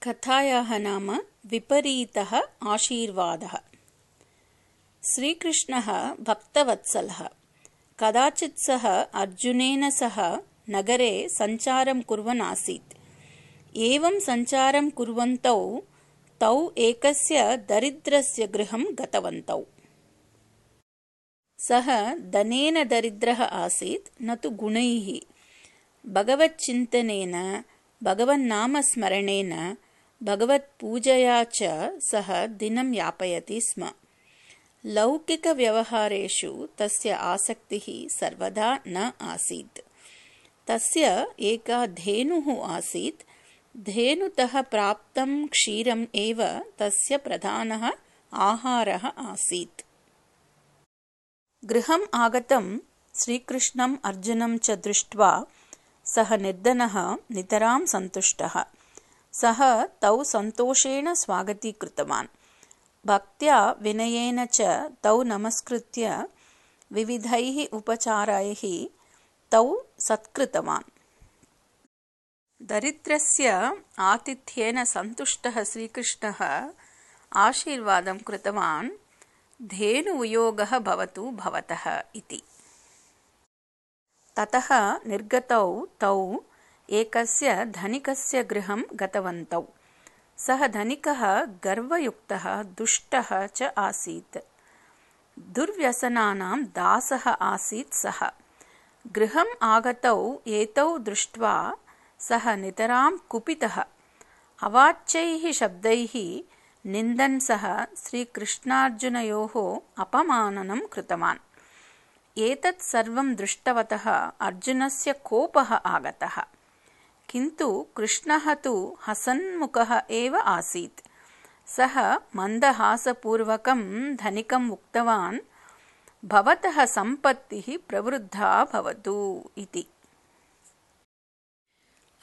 कथायाः नाम विपरीतः आशीर्वादः। श्रीकृष्णः भक्तवत्सलः। कदाचित् सः अर्जुनेन सह नगरे सञ्चारं कुर्वन् आसीत्। एवं सञ्चारं कुर्वन्तौ तौ एकस्य दरिद्रस्य गृहं गतवन्तौ। सः धनेन दरिद्रः आसीत्, न तु गुणैः। भगवच्चिन्तनेन, भगवन्नामस्मरणेन, भगवत्पूजया च सः दिनं यापयति स्म। लौकिकव्यवहारेषु तस्य आसक्तिः सर्वदा न आसीत्। तस्य एका धेनुः आसीत्। धेनुतः प्राप्तं क्षीरम् एव तस्य प्रधानः आहारः आसीत्। गृहम् आगतं श्रीकृष्णम् अर्जुनं च दृष्ट्वा सः निर्धनः नितरां सन्तुष्टः। सः तौ सन्तोषेण स्वागतीकृतवान्। भक्त्या विनयेन च तौ नमस्कृत्य विविधैः उपचारैः तौ सत्कृतवान्। दरिद्रस्य आतिथ्येन सन्तुष्टः श्रीकृष्णः आशीर्वादं कृतवान्, धेनुवियोगः भवतु भवतः इति। ततः निर्गतौ तौ एकस्य धनिकस्य गृहं गतवन्तौ। सः धनिकः गर्वयुक्तः दुष्टः च आसीत्। दुर्व्यसनानां दासः आसीत् सः। गृहम् आगतौ एतौ दृष्ट्वा सः नितरां कुपितः। अवाच्यैः शब्दैः निन्दन् सः श्रीकृष्णार्जुनयोः अपमाननं कृतवान्। एतत् सर्वं दृष्टवतः अर्जुनस्य कोपः आगतः। किन्तु कृष्णः तु हसन्मुखः एव आसीत्। सः मन्दहासपूर्वकं धनिकम् उक्तवान्, भवतः सम्पत्तिः प्रवृद्धा भवतु इति।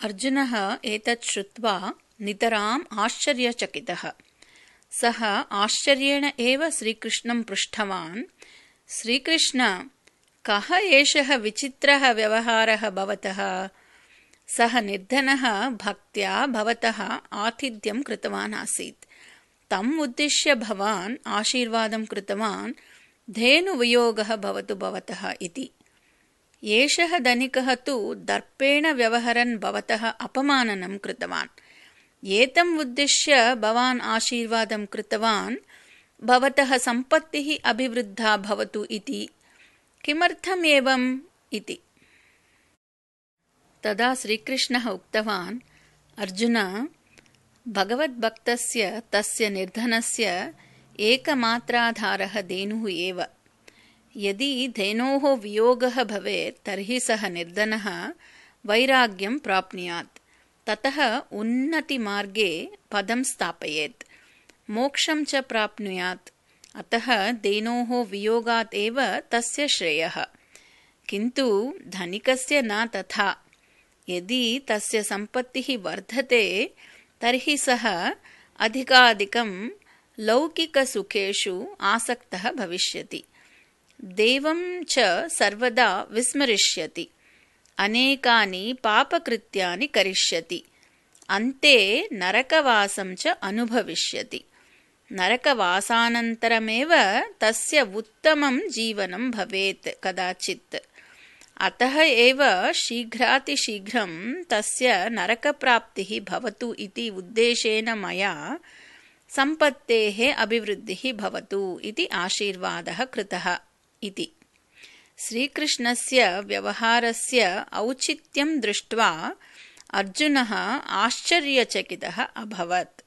अर्जुनः एतत् श्रुत्वा नितराम् आश्चर्यचकितः। सः आश्चर्येण एव श्रीकृष्णं पृष्टवान्, श्रीकृष्ण, कः एषः विचित्रः व्यवहारः भवतः? सः निर्धनः भक्त्या भवतः आतिथ्यं कृतवान् आसीत्। तम् उद्दिश्य भवान् आशीर्वादं कृतवान्, धेनुवियोगः भवतु भवतः इति। एषः धनिकः तु दर्पेण व्यवहरन् भवतः अपमाननं कृतवान्। एतम् उद्दिश्य भवान् आशीर्वादं कृतवान्, भवतः सम्पत्तिः अभिवृद्धा भवतु इति। किमर्थम् एवम् इति। तदा श्रीकृष्णः उक्तवान्, अर्जुन, भगवद्भक्तस्य तस्य निर्धनस्य एकमात्राधारः धेनुः एव। यदि धेनोः वियोगः भवेत् तर्हि सः निर्धनः वैराग्यं प्राप्नुयात्। ततः उन्नतिमार्गे पदं स्थापयेत्, मोक्षं च प्राप्नुयात्। अतः धेनोः वियोगात् एव तस्य श्रेयः। किन्तु धनिकस्य न तथा। यदि तस्य सम्पत्तिः वर्धते तर्हि सः अधिकाधिकं लौकिकसुखेषु आसक्तः भविष्यति। देवं च सर्वदा विस्मरिष्यति। अनेकानि पापकृत्यानि करिष्यति। अन्ते नरकवासं च अनुभविष्यति। नरकवासानन्तरमेव तस्य उत्तमं जीवनं भवेत् कदाचित्। अतः एव शीघ्रातिशीघ्रं तस्य नरकप्राप्तिः भवतु इति उद्देशेन मया सम्पत्तेः अभिवृद्धिः भवतु इति आशीर्वादः कृतः इति। श्रीकृष्णस्य व्यवहारस्य औचित्यं दृष्ट्वा अर्जुनः आश्चर्यचकितः अभवत्।